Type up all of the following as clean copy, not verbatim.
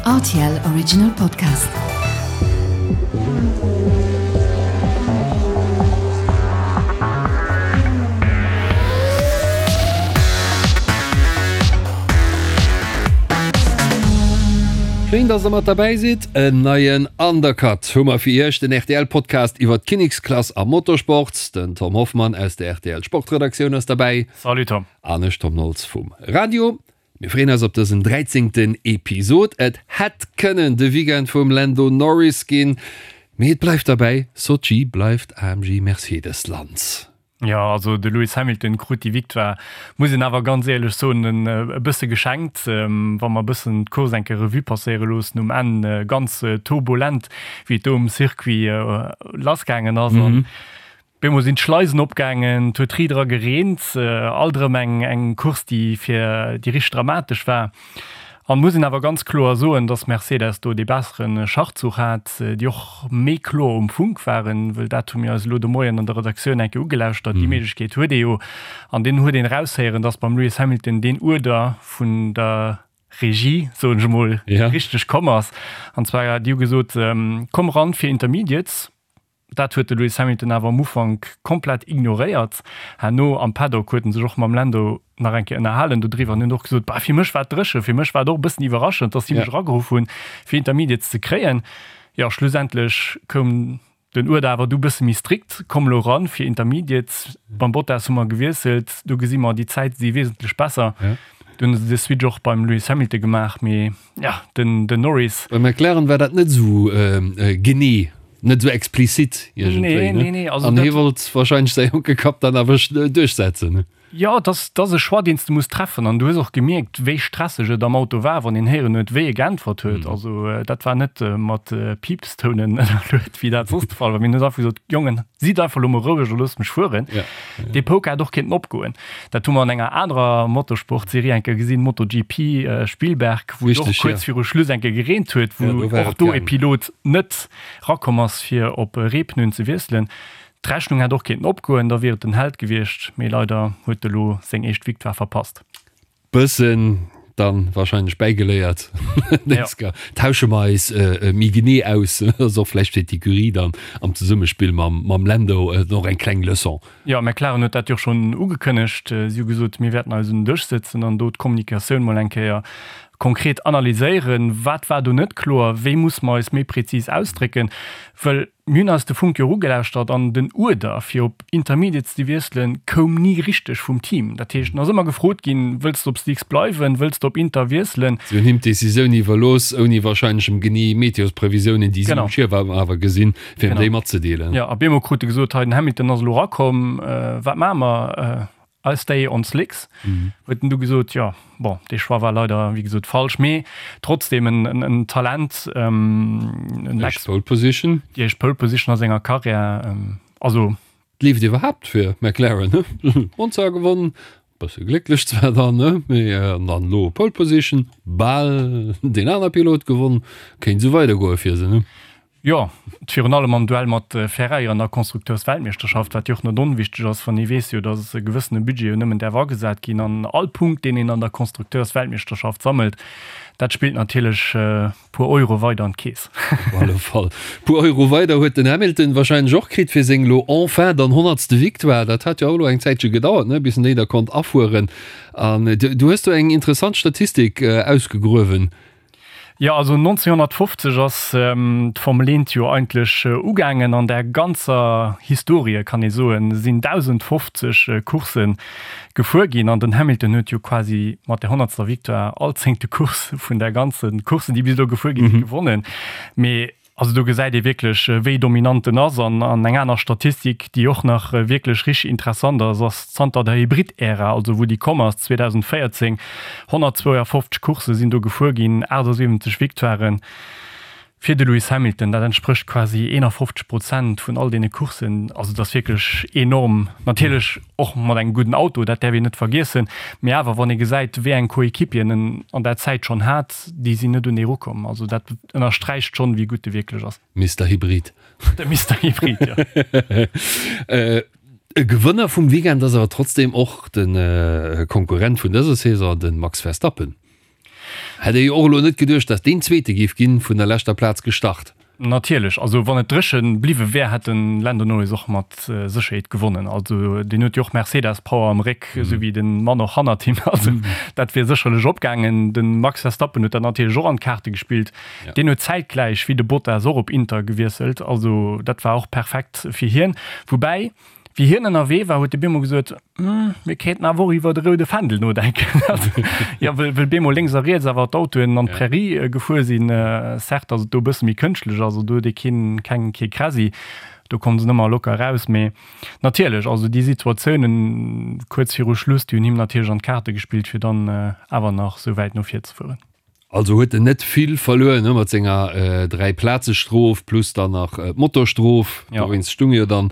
Rtl Original Podcast. Schéin, dass der mat derbäi sidd. En neien Undercut hu mer fir iech, den RTL-Podcast iwwer d'Kinneksklass am Motorsport. Den Tom Hoffmann aus der RTL-Sportredaktioun ass derbäi. Salut Tom. An ech, Tom Nolz vum Radio. Mir freeën eis op dësen dräizéngten Episod. Et hätt kënnen de Weekend vum Lando Norris ginn, mee et bleift derbäi, Sotschi bleift AMG Mercedes Land. Jo, also de Lewis Hamilton krut déi Victoire, muss een awer ganz éierlech soen, e bësse geschenkt. Wa mer e bëssen d'Course eng Kéier Revue passéiere loossen, um Enn ganz turbulent, wéi et do um Circuit lassgaangen ass. An Op eemol sinn d'Schleisen opgaangen, et huet ri dra gereent, alt erëm eng eng Course, déi fir déi richteg dramatesch war. An muss een awer ganz kloer soen, dass Mercedes do dee bessere Schachzuch hat, déi och méi kloer um Funk waren, wëll dat hu mir eis elo de Moien an der Redaktioun eng Kéier ugelauschtert, déi Méiglechkeet huet ee jo. An deen huet een eraushéieren, dass beim Lewis Hamilton deen Uerder vun der Regie, soen ech emol, richteg komm ass. An zwar, déi hu gesot, komm ran fir Intermediates. Dat huet de Lewis Hamilton awer am Ufank komplett ignoréiert. Herno am Paddock huet en sech och mam Lando nach eng Kéier ënnerhalen dodriwwer an huet och gesot, Bah, fir mech war et dréchen, fir mech war et och e bëssen iwwerraschend, dass si mech erageruff hunn, fir Intermediates ze kréien. Jo, schlussendlech koum den Uerder awer du bësse méi strikt, Komm elo eran fir Intermediates. Beim Bottas hu mer gewiesselt, do gesi mer, déi Zäite si wesentlech besser. Du hunn se de Switch och beim Lewis Hamilton gemaach, mee ja, den, den Norris. Bei McLaren war dat net esou genee, net esou explizit iergendwéi, ne? Nee, nee, nee, also An hie wollt wahrscheinlech säi jonke Kapp dann awer duerchsetzen, ne? Jo, et ass, et ass e Choix, deen s de muss treffen. An du hues och gemierkt, wéi stresseg et am Auto war, wann een héieren huet, wéi e geäntwert huet. Also dat war net mat Piipstounen ënnerluet, wéi dat soss de Fall war. Mee en huet einfach gesot, Jongen, sidd einfach elo mol roueg a loosst mech fueren. Dee Poker hätt och kéinten opgoen. Dat hu mer an enger anerer Motorsport-Serie eng Kéier gesinn, MotoGP Spielberg, wou et och kuerz viru Schluss eng Kéier gereent huet, wou och do e Pilot net rakomm ass, fir op Reepneuen ze wiesselen. D'Rechnung hätt och kéinten opgoen, da wier et den Held gewiescht, mee leider huet e lo seng éischt Victoire verpasst. Bëssen dann wahrscheinlech bäigeléiert. Ja. Tausche mer eis méi genee aus. Ass och vläicht fir d'Ecurie dann am Zesummespill mam, mam Lando och eng kleng Leçon. Jo, McLaren huet dat jo schonn ugekënnegt. Si hu gesot, mir wäerten eis un den Dësch sëtzen an do d'Kommunikatioun mol eng Kéier konkret analyséieren. Wat war do net kloer? Wéi musse mer eis méi prezis ausdrécken? Wëll Mir hunn eis de Funk jo erugelauschtert an den Uerder fir op Intermediates ze wiesselen koum ni richteg vum Team. Dat heescht, en ass ëmmer gefrot ginn, Wëlls de op Slicks bleiwen? Wëlls de op Inter wiesselen? Si hunn him d'Decisioun iwwerlooss, ouni warscheinlech em genee Meteosprevisiounen, déi si um Schierm awer gesinn, fir em déi matzedeelen. Jo, a bemol krut e gesot, Hei, den Hamilton ass elo erakomm, wat maache mer? I stay on slicks, huet en du gesot. Jo, bon, dee Choix war leider, wéi gesot, falsch, mee trotzdem en, en Talent. En Éischt Pole Position. Déi éischt Pole Position a senger Karriär, also. Et leeft iwwerhaapt fir McLaren, ne? Monza gewonnen, bësse glécklech zwar dann, ne, mee an dann elo Pole Position, bal deen aner Pilot gewonnen, kéint esou weidergoe fir se, ne? Jo, virun allem am Duell mat Ferrari an der Konstrukteursweltmeeschterschaft, wat jo och net onwichteg ass, wann ee weess jo, datt e gewëssene Budget jo nëmmen däerf agesat ginn an all Punkt, deen een an der Konstrukteursweltmeeschterschaft sammelt, dat spillt natierlech puer Euro weider an d'Keess. Op alle Fall puer Euro weider huet den Hamilton warscheinlech och kritt fir seng elo enfin dann honnertste Victoire. Dat hat jo och elo eng Zäitche gedauert, ne, bis en déi da konnt afueren. An du hues do eng interessant Statistik ausgegruewen. Jo, also 1950 ass d'Formel Eent jo eigentlech ugaangen. An der ganzer Historie, kann ee soen, sinn 1.050 Coursse gefuer ginn. An den Hamilton huet jo quasi mat der honnertster Victoire all zéngte Course vun der ganze Courssen, déi bis elo gefuer gi sinn, gewonnen. Mee Also do gesäit ee wierklech, wéi dominant en ass. An eng aner Statistik, déi och nach wierklech richteg interessant ass, ass zanter der Hybrid-Ära, also wou déi komm ass, 2014, 152 Coursse sinn do gefuer ginn, 78 Victoiren fir de Lewis Hamilton. Dat entsprécht quasi 51 Prozent vun all deene Courssen. Also dat ass wierklech enorm. Natierlech och mat engem gudden Auto, dat däerf een net vergiessen. Mee awer, wann ee gesäit, wéi eng Coéquipieren en an der Zäit schonn hat, déi sinn net un dee erukomm. Also dat ënnersträicht schonn, wéi gutt e wierklech ass. Mister Hybrid. De Mister Hybrid, jo. E Gewënner vum Weekend ass awer trotzdem och de Konkurrent vun dëser Saison, de Max Verstappen. Hätt ee jo och elo net geduecht, datt deen Zweete géif ginn, vun der leschter Plaz gestart. Natierlech, also wann et dréche bliwwe wär, hätt de Lando Norris och mat Sécherheet gewonnen. Also deen huet jo och Mercedes-Power am Réck, esou wéi de Mann och hannert him. Also dat wier sécherlech opgaangen. De Max Verstappen huet dat natierlech och an d'Kaarte gespillt. Deen huet zäitgläich wéi de Bottas och op Inter gewiesselt. Also dat war och perfekt fir hien. Woubäi, Wéi hien ënnerwee war, huet de bemol gesot, Hm, mir kéinten awer och iwwer de roude Fändel nodenken. Jo, well, well bemol lénks a riets awer d'Autoen an d'Prärie gefuer sinn. Certes ass et do e bësse méi kënschtlech, also do huet ee keen, keng, kee Kräsi, do komme se nëmmer locker eraus. Mee natierlech, also déi Situatiounen kuerz viru Schluss, déi hunn him natierlech an d'Kaarte gespillt, fir dann awer nach esou wäit no vir ze fueren. Also huet en net vill verluer ne mat senger 3 Plaze Strof plus dann nach d'Motorstrof. Ja. Dowéinst stung jo dann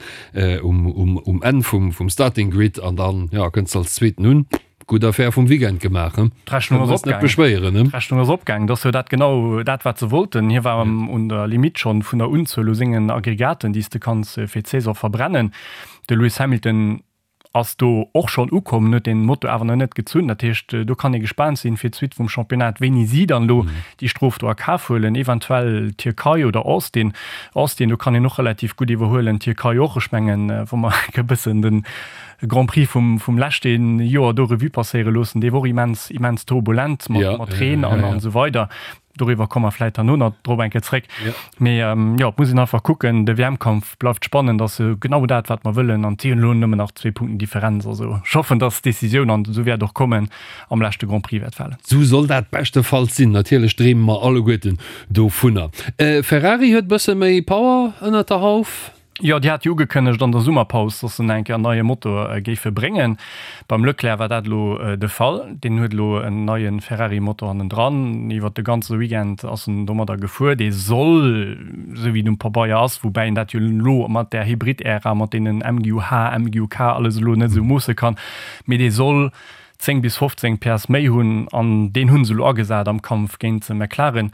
um, um, um Enn vum, vum Starting Grid an dann ja kënns als Zweeten un. Gutt Affär vum Weekend gemaach he. D'Rechnung ass net beschwéieren ne. D'Rechnung ass opgaang. Dat ass jo dat genau dat wat se wollten. Hie war ja. un der Limite schonn vun der Unzuel u sengen Aggregaten déi s de kanns fir d'Saison verbrennen. De Lewis Hamilton ass do och schonn ukomm, huet den Moto awer nach net gezunn. Dat heescht, do kann ee gespaant sinn fir d'Suite vum Championnat, wéini si dann elo déi Strof do a Kaf huelen, eventuell Tierkei oder Austin. Austin, do kann een och relativ gutt iwwerhuelen, Tierkei och. Ech mengen, wa mer e bëssen de Grand Prix vum, vum leschte Joer do Revue passéiere loossen, dee war och immens, immens turbulent mat Reen an esou weider. Doriwwer komme mer vläit herno nach drop eng Kéier zréck. Mee jo, et muss een einfach kucken, de WM-Kampf bleift spannend, ass jo genau dat, wat mer wëllen. An et si jo elo nëmmen nach zwee Punkten Differenz. Also ech hoffen, datt d'Decisioun, an esou wäert och kommen, am leschte Grand Prix wäert falen. Esou soll dat beschtefalls sinn. Natierlech dreeme mer alleguerten dovunner. Ferrari huet e bësse méi Power ënnert der Hauf. Jo, déi hat jo ugekënnegt an der Summerpaus, dass se nach eng Kéier en neie Motor géife bréngen. Beim Leclerc war dat elo de Fall. Deen huet elo en neie Ferrari-Motor hannendran. Iwwer de ganze Weekend ass en domadder gefuer. Dee soll, esou wéi et um Pabeier ass, woubäi een dat jo elo mat där Hybrid-Ära, mat deenen MGUH, MGUK alles elo net esou moosse kann, mee dee soll 10 bis 15 PS méi hunn an deen hu se elo agesat am Kampf géint McLaren.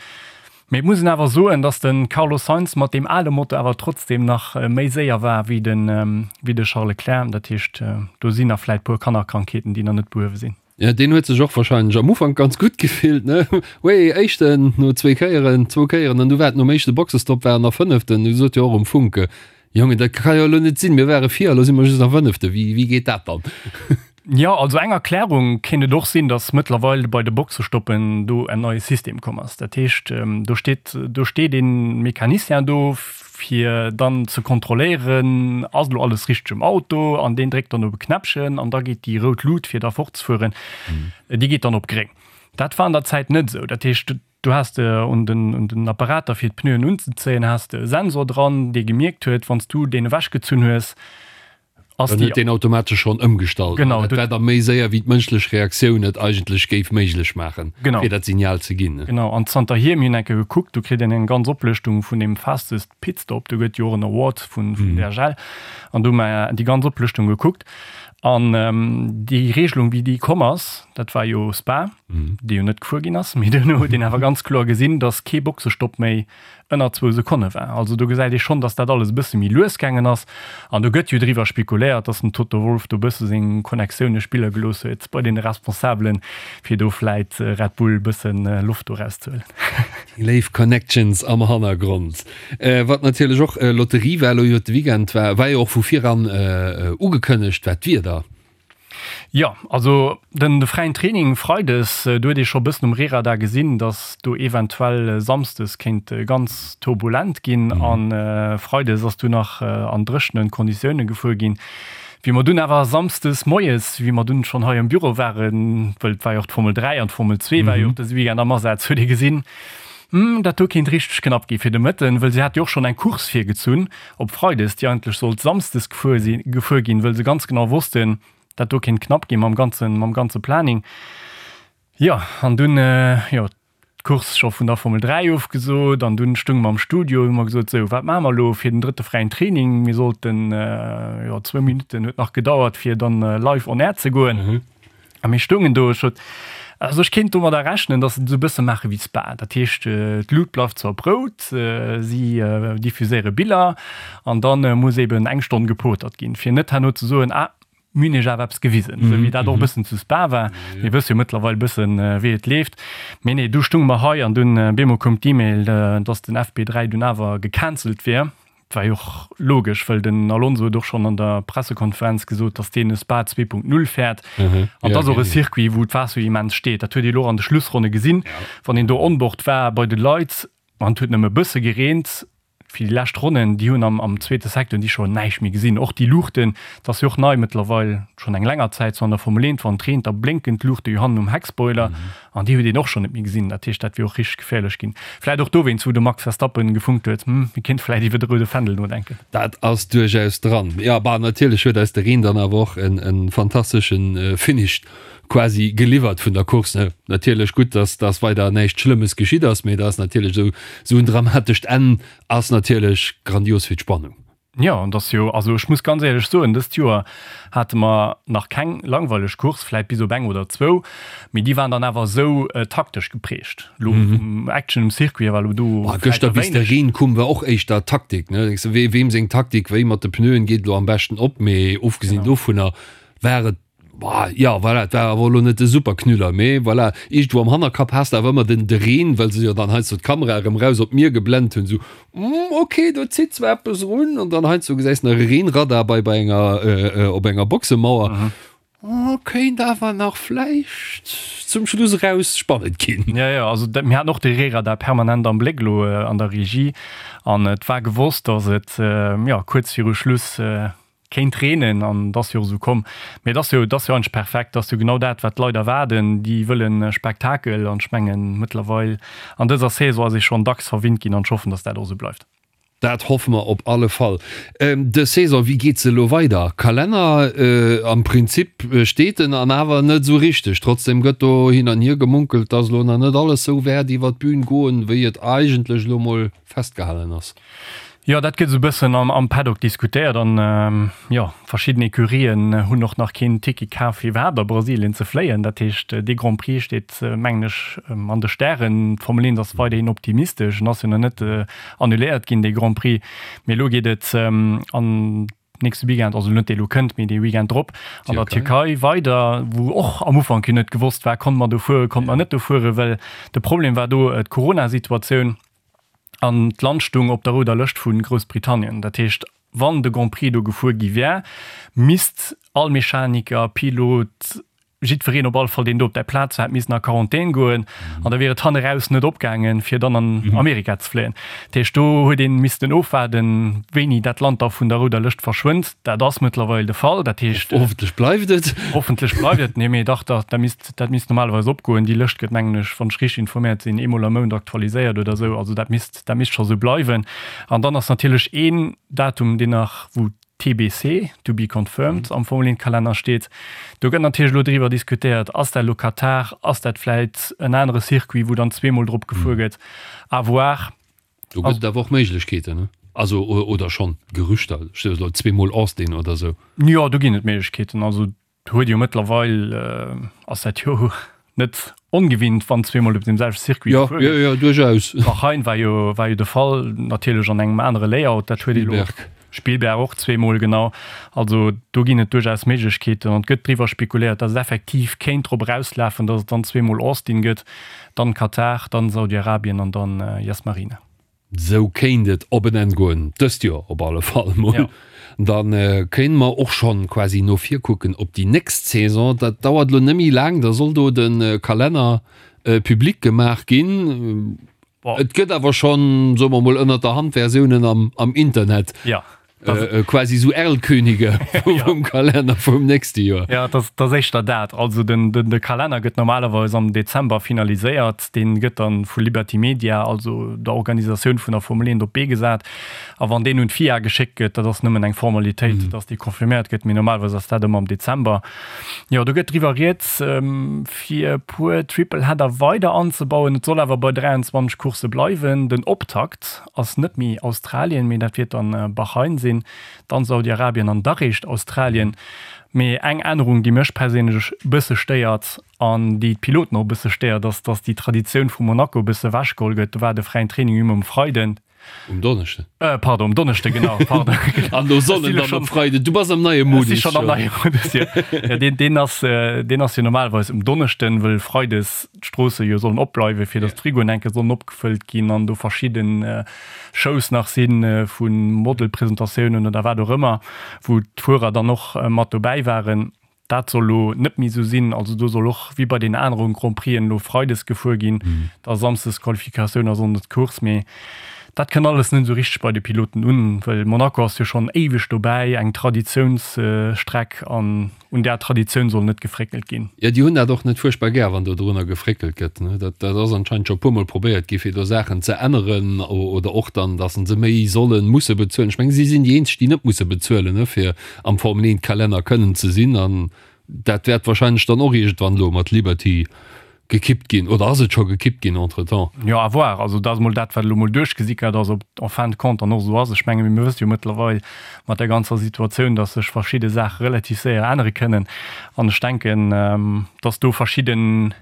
Mee et muss een awer soen, dass de Carlos Sainz mat deem ale Motor awer trotzdeem nach méi séier war wéi de Charles Leclerc. Dat heescht, do sinn nach vläit puer Kannerkrankheeten, déi nach net behuewe sinn. Jo, deen huet sech och warscheinlech am Ufank ganz gutt gefillt, ne? Wéi Éischten no zwee Kéieren, zwou Kéieren, an du war et nom éischte Boxestopp war en nach Fënneften. Du sot jo och um Funk, Jongen, dat ka jo elo net sinn, mir ware vir, elo si mer just nach Fënnefte, wéi, wéi geet dat dann? Jo, also eng Erklärung kéint et och sinn, datt mëttlerweil bei de Boxestoppen do en neie System komm ass. Dat heescht, do steet, do steet ee Mecanicien do, fir dann ze kontrolléieren, ass elo alles richteg um Auto, an deen dréckt dann op e Knäppchen an da geet déi rout Lut, fir da fortzefueren, déi geet dann op gréng. Dat war an der Zäit net esou. Dat heescht, Du has de un den, un den Apparater fir d'Pneuen unzezéien, has de e Sensor dran, dee gemierkt huet, wann s du deen ewechgezunn hues, ass Dann déi. huet deen automatesch schonn ëmgestallt. Genau, Dat war da méi séier, wéi d'mënschlech Reaktioun et eigentlech géif méiglech maachen, Genau. fir dat Signal ze ginn. Genau, an zanterhier, mir hunn eng Kéier gekuckt, do kritt een eng ganz Oplëschtung vun deem Fastest Pit Stop, do gëtt jo och en Award vun, vun DHL, an do hu mer déi ganz Oplëschtung gekuckt. An déi Regelung, wéi déi komm ass, dat war jo Spa, dee jo net gefuer ginn ass, mee duerno huet een awer ganz kloer gesinn, datt kee Boxestopp méi ënner zwou Sekonne war. Also do gesäit ee schonn, datt dat alles e bësse méi lues gaangen ass. An do gëtt jo driwwer spekuléiert, datt den Toto Wolff do e bësse seng Connectioune spille gelooss huet bei deene Responsabelen, fir do vläit Red Bull e bësse Loft do erauszehuelen. Déi léif Connections am Hannergrond. Wat natierlech och Lotterie war elo iwwert de Weekend, war war jo och vu viran ugekënnegt, war d'Wieder. Jo, also den de fräien Training freides, do huet ee scho bëssen um Rehradar gesinn, datt do eventuell samsdes kéint ganz turbulent ginn. A freides ass du nach an dréchene Konditioune gefuer ginn. Wéi mer dunn awer samsdes moies, wéi mer dunn schonn hei am Büro waren, wëll et war jo och d'Formel 3 an d'Formel 2 war jo och dëse Weekend am Asaz, huet ee gesinn, Hm, dat do kéint richteg knapp gi fir de Mëtten, wëll si hat jo och schonn eng Course virgezunn op Freides, déi eigentlech sollt Samsdes gefuer si gefuer ginn, wëll se ganz genau wossten, dat do kéint knapp gi mam ganzen mam ganze Planning. Jo, an dunn, jo, d'Course scho vun der Formel 3 ofgesot an dunn stounge mer am Studio, hu mer gesot, sou, wat maache mer elo fir den drëtte fräien Training? Mir sollten, jo, zwou Minutten huet nach gedauert, fir dann live on air ze goen. A mir stoungen do, ech sot, also ech kéint domadder rechnen, datt se et esou e bësse maache wéi Spa. Dat heescht, d'Lut bleift zwar op rout, si diffuséiere Biller an da muss eben eng Stonn gepotert ginn, fir net herno ze soen, ah, Mir hunn iech awer eppes gewisen, esou wéi dat och e bëssen zu Spa war. Mir wësse jo mëttlerweil e bëssen, wéi et leeft. Mee nee, du stunge mer hei an dunn bemol koum d'E-Mail, dass den FP3 dunn awer gecancelt wier. Dat war jo och logesch, well den Alonso huet och schonn an der Pressekonferenz gesot, dass deen e Spa 2.0 fäert. An et ass och e Circuit, wou d'Waasser jo immens steet. Dat huet ee lo och an de Schlussronne gesinn, wann een do onboard war bei de Leit an et huet nëmme e bësse gereent. Fir déi lescht Ronnen, déi hunn am am zweete Secteur hunn déi scho näischt méi gesinn. Och déi Luuchten, dat ass jo och nei mëttlerweil, schonn eng länger Zäit sou an der Formel 1, wann et reent, da blénken d'Luuchte jo hannen um Heckspoiler an déi huet een och schonn net méi gesinn. Dat heescht, dat wier och richteg geféierlech ginn. Vläit och dowéinst, wou de Max Verstappen gefunkt huet, hm, mir kéinte vläit iwwer de roude Fändel nodenken. Dat ass duerchaus dran. Jo, bah, natierlech huet eis de Reen dann awer och en en fantasteschen Finish quasi geliwwert vun der Course, ne? Natierlech gutt, dass dass weider näischt Schlëmmes geschitt ass, mee dat ass natierlech esou esou en dramatescht Enn ass natierlech grandios fir d'Spannung. Jo, an dass jo, also ech muss ganz éierlech soen, dëst Joer hate mer nach keng langweileg Course, vläit bis op eng oder zwou, mee déi waren dann awer esou taktesch geprägt. Lo vum Action um Circuit war lo do vläit Gëschter bis de Reen koum war och éischter Taktik, ne? Denkst de, wee weem seng Taktik wéi mat de Pneuen geet elo am beschten op, mee ofgesinn dovunner war et Boah, jo, voilà, et war awer elo net de Superknüller, mee voilà, iergendwou am Hannerkapp has de awer ëmmer den de Reen, well se jo dann heiansdo d'Kamera erëm raus op d'Mier geblent hunn, sou, hm, ok, do zitt zwar eppes erun, an dann heiansdo gesäis de nach e Reenradar bei bei enger op enger Boxemauer, oh, kéint awer nach vläicht zum Schluss eraus spannend ginn. Jo, jo, also dat, mir haten och de Reeradar permanent am Bléck elo an der Regie, an et war gewosst, datt et, jo, kuerz viru Schluss Kéint reenen an et ass jo och esou komm. Mee et ass jo, et ass jo eigentlech perfekt, et ass jo genau dat, wat d'Leit erwaarden. Déi wëllen Spektakel an ech mengen, mëttlerweil an dëser Saison ass ee schonn dacks verwinnt ginn an ech hoffen, datt dat och esou bleift. Dat hoffe mer op alle Fall. Dës Saison, wéi geet se elo weider? Kalenner, am Prinzip steet en an awer net esou richteg. Trotzdem gëtt do hin an hier gemunkelt, datt elo nach net alles esou wäert iwwer d'Bün goen, wéi et eigentlech elo mol festgehalen ass. Jo, dat gëtt esou e bëssen am Paddock diskutéiert an jo, verschidden Ecurien hunn och nach keen Ticket kaf fir iwwerhaapt a Brasilien ze fléien. Dat heescht, dee Grand Prix steet, mengen ech, an de Stären. D'Formel 1 ass weiderhin optimistesch, en ass jo nach net annuléiert ginn, dee Grand Prix. Mee elo geet et an nächste Weekend, also net dee lo kënnt, mee dee Weekend drop an der Tierkei weider, wou och am Ufank jo net gewosst war, konnte mer do fueren, konnte mer net do fueren, well de Problem war do d'Corona-Situatioun. An d'Land stung op der rouder Lëscht vu Groussbritannien. Dat heescht, wann de Grand Prix do gefuer gi wär, misst all Mechaniker, Pilot, jiddwereen op alle Fall, deen do op där Plaz war, hätt missen a Quarantän goen. An da wier et hanneraus net opgaangen, fir dann an Amerika ze fléien. Dat heescht, do huet ee missten ofwaarden, wéini dat Land da vun der rouder Lëscht verschwënnt. Dat ass mëttlerweil de Fall. Dat heescht. Hoffentlech bleift et. Hoffentlech bleift et. Nee, mee dach, dat misst. Dat misst normalerweis opgoen. Déi Lëscht gëtt, mengen ech, wann ech richteg informéiert sinn, eemol am Mount aktualiséiert oder esou. Also dat misst, dat misst scho sou bleiwen. An dann ass natierlech een Datum, deen nach, wou TBC, to be confirmed, am Formel 1 Kalenner steet. Do gëtt natierlech elo driwwer diskutéiert, ass dat elo Katar, ass dat vläit en anere Circuit, wou dann zweemol drop gefuer gëtt? À voir. Do gëtt et awer och Méiglechkeeten, ne? Also, oder schonn Gerüchter, elo zweemol Austin oder sou. Jo, do ginn et Méiglechkeeten. Also Huet jo mëttlerweil, ass dat jo net ongewinnt, wann zweemol op deem selwechte Circuit gefuer gëtt. Jo, jo, duerchaus. Bahrain war jo, war jo de Fall, natierlech an engem anere Layout. Dat huet ee lo. Spielberg. Spielberg och zweemol, genau. Also do ginn et duerchaus Méiglechkeeten an et gëtt driwwer spekuléiert, datt et effektiv kéint drop erauslafen, datt et dann zweemol Austin gëtt, dann Katar, dann Saudi-Arabien an dann Yas Marina. Sou kéint et op en Enn goen, dëst Joer op alle Fall mol. Da kéinte mer och schonn quasi no vir kucken op déi nächst Saison. Dat dauert elo net méi laang, da soll do de Kalenner public gemaach ginn. Et gëtt awer schonn, soe mer mol, ënnert der Hand Versiounen am Internet. Quasi esou Erlkönige vum Kalenner vum nächste Joer. Jo, et ass éischter dat. Also den de Kalenner gëtt normalerweis am Dezember finaliséiert. Dee gëtt dann vu Liberty Media, also der Organisatioun vun der Formel 1, op d'Bee gesat. A wann deen un d'FIA geschéckt gëtt, dat ass nëmmen eng Formalitéit, datt dee confirméiert gëtt, mee normalerweis ass dat ëmmer am Dezember. Jo, do gëtt driwwer rieds, fir e puer Tripleheader weider anzebauen. Et soll awer bei 23 Coursse bleiwen. Den Optakt ass net méi Australien, mee dat wiert dann Bahrain sinn, dann Saudi-Arabien an da réischt Australien. Mee eng Ännerung, déi mech perséinlech e bësse stéiert an déi d'Piloten och e bësse stéiert, ass, dass déi Traditioun vu Monaco e bësse ewechgeholl gëtt. Do war de fräien Training jo ëmmer um Freiden. Um Donneschden. Äh, pardon, um Donneschde, genau. Pardon. An do sollen dann op Freiden. Du bass am neie Modus. Ech si schonn am neie Modus, jo. Ja, deen, deen ass, äh, deen ass jo normalerweis um Donneschden, wëll Freides d'Stroosse jo sollen opbleiwen, fir datt d'Frigoen enke sollen opgefëllt ginn an do verschidden äh, Shows nach sinn äh, vu Modelpresentatiounen oder wat och ëmmer, wou d'Fuerer dann och äh, mat dobäi waren. Dat soll elo net méi esou sinn. Also do soll och wéi bei den aneren Grand Prixen elo freides gefuer ginn, da samsdes Qualifikatioun a sonndes d'Course. Mee dat kënnt alles net esou richteg bei de Piloten un, well Monaco ass jo schonn éiweg dobäi, eng Traditiounsstreck an un där Traditioun soll net gefréckelt ginn. Jo, déi hunn dat och net fuerchtbar gär, wann do drunner gefréckelt gëtt. Dat ass anscheinend scho e puermol probéiert gi fir do Saachen ze änneren oder och dann, datt se méi sollen, musse bezuelen. Ech mengen, si sinn déi eenzeg, déi net musse bezuelen, fir am Formel 1 Kalenner kënnen ze sinn an dat wäert wahrscheinlech dann och iergendwann elo mat Liberty gekippt ginn oder ass et scho gekippt ginn entretemps? Jo, à voir. Also dat ass emol dat, wat elo emol duerchgesickert ass, ob et en fin de compte dann och esou ass. Ech menge mir wësse jo mëttlerweil mat der ganzer Situatioun, datt sech verschidde Saache relativ séier ännere kënnen an ech denken, datt do verschidden,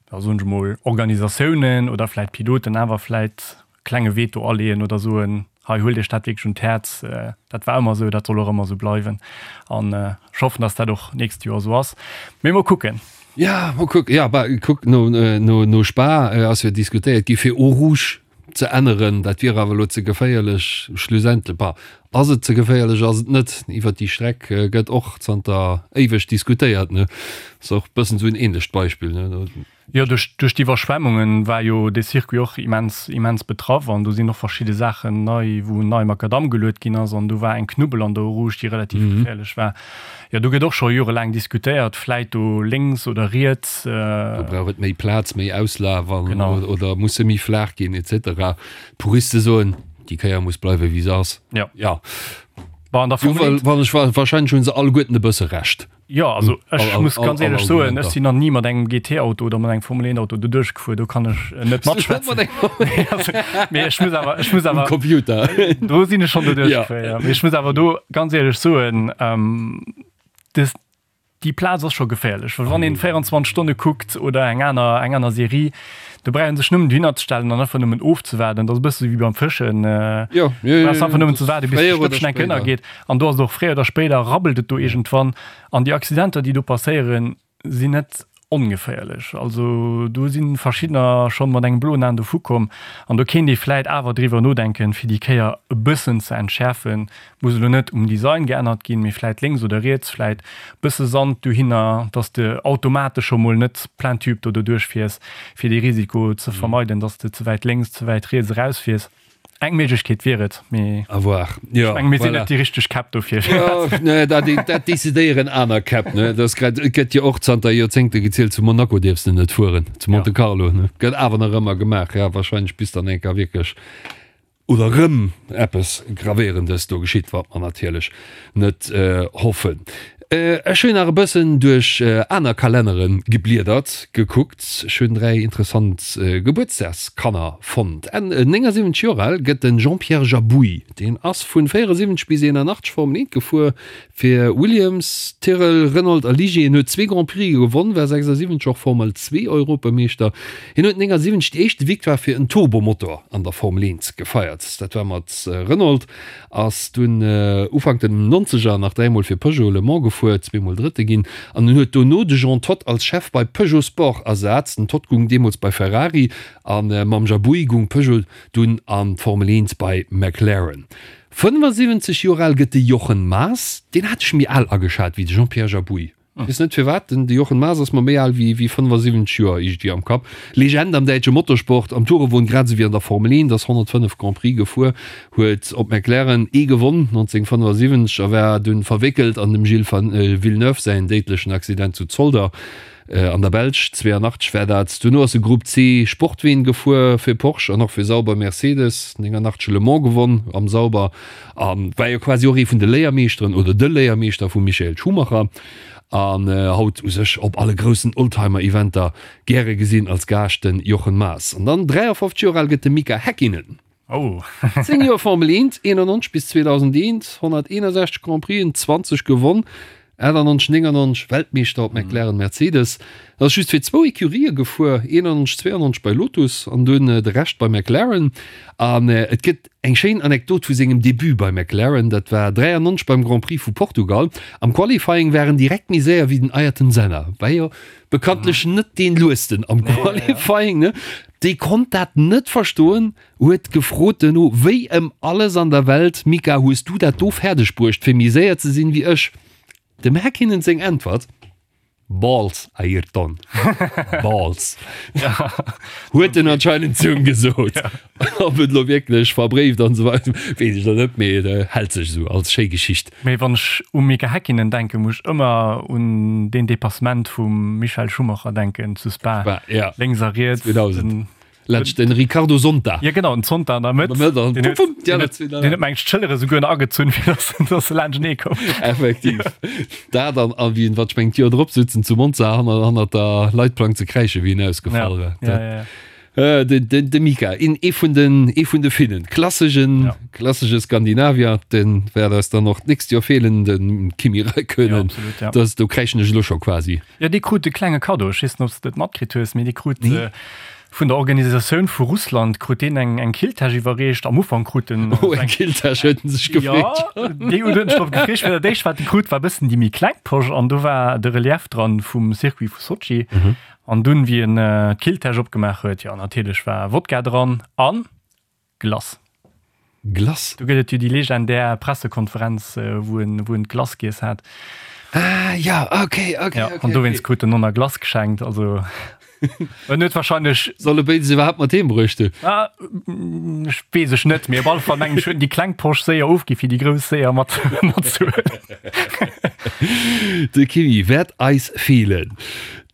da soen ech emol, Organisatiounen oder vläit Piloten awer vläit klenge Veto aleeën oder soen, hei huelt Iech dat wierklech un d'Häerz, dat war ëmmer esou, dat soll och ëmmer esou bleiwen. An ech hoffen, datt dat och d'nächst Joer esou ass. Mee mol kucken. Ja, mol kucken. Ja, bah, kuck, no, no, no Spa ass jo diskutéiert gi fir Eau Rouge ze änneren. Dat wier awer elo ze geféierlech. Schlussendlech, bah, ass et ze geféierlech, ass et net? Iwwert déi Streck gëtt och zanter éiweg diskutéiert, ne? Ass och e bëssen esou en ähnlecht Beispill, ne? Jo, duerch, duerch d'Iwwerschwemmungen war jo dee Circuit och immens, immens betraff an do sinn och verschidde Saachen nei, wou nei Makadamm geluet ginn ass an do war eng Knubbel an der Eau Rouge, déi relativ geféierlech war. Jo, do gëtt och scho jorelaang diskutéiert, vläit do lénks oder riets. Do brauch et méi Plaz, méi Auslaf an, genau, oder muss se méi flaach ginn et cetera. D'Puriste soen, déi Kéier muss bleiwe wéi se ass. Jo. Ja. Bon, an der Formel 1. Wann ech, wahrscheinlech hu se alleguerten e bësse Recht. Jo, also ech muss ganz éierlech soen, ech sinn nach ni mat engem GT-Auto oder mat engem Formel-1-Auto do duerchgefuer, do kann ech net matschwätzen. Mee ech muss awer, ech muss awer. Um Computer. Do sinn ech schonn do duerchgefuer, ja. Mee ech muss awer do ganz éierlech soen, des, déi Plaz ass scho geféierlech, well wann een 24 Stonne kuckt oder eng aner, eng aner Serie, Do brauch een sech nëmmen dohinner ze stellen an einfach nëmmen ofzewaarden. Dat ass e bësse wéi beim Fëschen. Jo, jo, jo. Brauchs einfach nëmmen ze waarden, bis de Stëppchen enk ënnergeet. An do ass et och fréier oder spéider rabbelt et do iergendwann. An déi Accidenter, déi do passéieren, sinn net ongeféierlech. Also do si verschiddener schonn mat engem bloen Aen dovu komm. An do kéint ee vläit awer driwwer nodenken, fir déi Kéier e bëssen ze entschäerfen, Muss elo net um Design geännert ginn, mee vläit lénks oder riets vläit bësse Sand dohinner, dass de automatesch scho mol net plein tube do doduerch fiers, fir dee Risiko ze vermeiden, dass de ze wäit lénks, ze wäit riets erausfiers. Eng Méiglechkeet wier et, mee À voir. ech menge mir sinn net déi richteg Käpp dofir. Jo, nee, dat, dat decidéieren aner Käpp, ne. Dat ass grad, et gëtt jo och zanter Joerzéngte gezielt, zu Monaco dierfs de net fueren, zu Monte Carlo, ne. Gëtt awer nach ëmmer gemaach, ja, wahrscheinlech bis dann eng Kéier wierklech oder rëm eppes Gravéierendes do geschitt, wat mer natierlech net hoffen. Ech hunn nach e bëssen duerch aner Kalennere gebliedert, gekuckt. Ech hunn 3 interessant Gebuertsdagskanner fonnt. Enn 79 Joer al gëtt de Jean-Pierre Jabouille. Deen ass vun 74 bis 81 Formel 1 gefuer Fir Williams, Tyrrell, Renault a Ligier. Hien huet zwee Grand Prixë gewonn, war 76 och Formel 2 Europameeschter. Hien huet 79 déi éischte Victoire fir en Turbomotor an der Formel 1 gefeiert. Dat war mat Renault. Ass dunn Ufank den Nonzeger nach dräimol fir Peugeot Le Mans gefuer, zweemol Drëtte ginn an en huet dono de Jean Todt als Chef bei Peugeot Sport ersat. Den Todt gung deemools bei Ferrari a mam Jabouille gung Peugeot dunn an d'Formel 1 bei McLaren. 75 Joer al gëtt de Jochen Maas. Deen hat ech méi al ageschat wéi de Jean-Pierre Jabouille. Weess net firwat, den de Jochen Maas ass mer méi al wéi wéi 75 Joer iergendwéi am Kapp. Legend am däitsche Motorsport, am Tourenwon grad esou wéi an der Formel 1, ass 105 Grand Prix gefuer, huet op McLaren ee gewonn 1975 a war dunn verwéckelt an dem Gilles Villeneuve säin déidlechen Accident zu Zolder. An der Belsch, 82 war dat. Duerno ass e Grupp C Sportween gefuer fir Porsche an och fir Sauber Mercedes. 89 Le Mans gewonn am Sauber a war jo quasi och ee vun de Léiermeeschteren oder de Léiermeeschter vum Michael Schumacher. An haut u sech op alle groussen Oldtimer-Eventer gäre gesinn als Gaascht den Jochen Maas. An dann 53 Joer al gëtt de Mika Häkkinen. Oh. 10 Joer Formel 1, 91 bis 2001, 161 Grand Prixen, 20 gewonn. 98, 99 Weltmeeschter op McLaren Mercedes. Ass just fir zwou Ecurië gefuer, 91, 92 bei Lotus an dunn de Rescht bei McLaren. An et gëtt eng schéin Anekdot vu sengem Debut bei McLaren, dat war 93 beim Grand Prix vu Portugal. Am Qualifying war en direkt méi séier wéi den Ayrton Senna, war jo bekanntlech net dee luesten am Qualifying, ne? Dee konnt dat net verstoen, huet gefrot duerno, Wéi ëm alles an der Welt, Mika, hues du dat do fäerdeg bruecht, fir méi séier ze sinn wéi ech? Dem Häkkinen seng Äntwert, Balls, Ayrton, Balls. Huet en anscheinend zu em gesot. Ob et elo wierklech verbréift an esou weider, weess ech elo net, mee et hält sech esou als schéi Geschicht. Mee wann ech u Mika Häkkinen denken, muss ech ëmmer un deen Depassement vum Michael Schumacher denken zu Spa, Spa, ja. Lénks a riets. 2000. Laanscht den Ricardo Zonta. Ja genau, den Zonta an der Mëtt. An der Mëtt, an deen huet, deen huet, deen huet meng d'Schëllere souguer nach agezunn, fir dass, dass se laanschtenee koum. Effektiv. Dat an, a wéi en, wat ech mengen, d'Joer drop sutzen zu Monza hanner, hannert der Leitplank ze kräischen, wéi en ausgefall war. Ja, ja, ja. Äh, de, de, de Mika, een, ee vun den, ee vun de Finnen. Klassegen, Ja. klassege Skandinavier, den wäert eis dann och d'nächst Joer feelen, den Kimi Räikkönen. Ja, absolut, ja. Das, do kräischen ech elo scho quasi. Jo, dee krut e klenge Kaddo. Ech weess net, ob s de et matkritt hues, mee dee krut Nee. vun der Organisatioun vu Russland krut deen eng eng Killtäsch iwwerreecht. Am Ufank krut en Oh, eng Killtäsch huet en sech gefreet. Jo, déi huet en sech drop gefreet. Well dat éischt, wat en krut, war e bëssen déi méi kleng Posch an do war de Relief dran vum Circuit vu Sotschi. An dunn, wéi en d'Killtäsch opgemaach huet, jo, natierlech war Wodka dran an Glace. Glace? Do gëtt et jo déi legendär Pressekonferenz, wou en, wou en d'Glace giess hat. Ah ja, okay, okay, Ja, okay. an dowéinst krut en Nonna Glace geschenkt. Also en huet wahrscheinlech. Soll e béides iwwerhaapt mat heem bruecht hunn? Ah, ech weess ech net, mee op alle Fall mengen ech huet en déi kleng Posch séier ofgi fir déi grouss séier mat matzehuelen. De Kimi wäert eis feelen.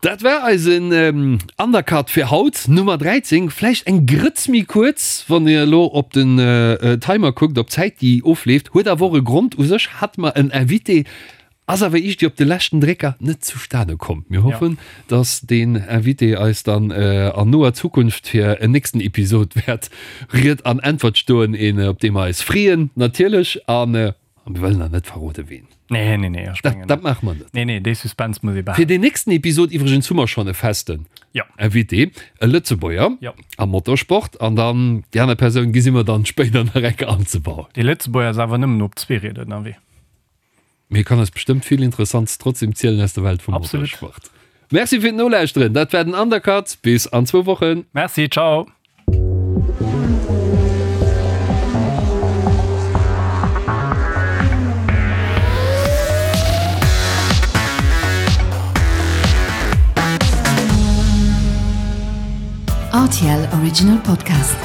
Dat war eisen Undercut fir haut, Nummer 13. Vläicht eng Grëtz méi kuerz, wann Dir elo op den Timer kuckt, op d'Zäit déi ofleeft. Huet awer och e Grond. U sech hate mer en Invité, ass awer iergendwéi op de leschten Drécker net zustane komm. Mir hoffen, dass deen Invité eis dann an noer Zukunft fir en nächsten Episod wäert Ried an Äntwert stoen, een op dee mer eis freeën natierlech. An A mir wëllen nach net verrode ween. Nee, nee, nee, ech mengen. Dat maache mer net. Nee, nee, dee Suspense muss ee behalen. Fir deen nächsten Episod iwwregens hu mer schonn e festen ja. Invité, e Lëtzebuerger ja. am Motorsport. An dann déi aner Persoun gesi mer dann spéider nach eng Kéier anzebauen. Dee Lëtzebuerger ass awer nëmmen op Zweerieder ënnerwee. Mee kann eis bestëmmt vill Interessants trotzdem zielen aus der Welt vum Absolut. Motorsport. Merci fir d'Nolauschteren. Dat war den Undercut. Bis an zwou Wochen. Merci, ciao. RTL Original Podcast.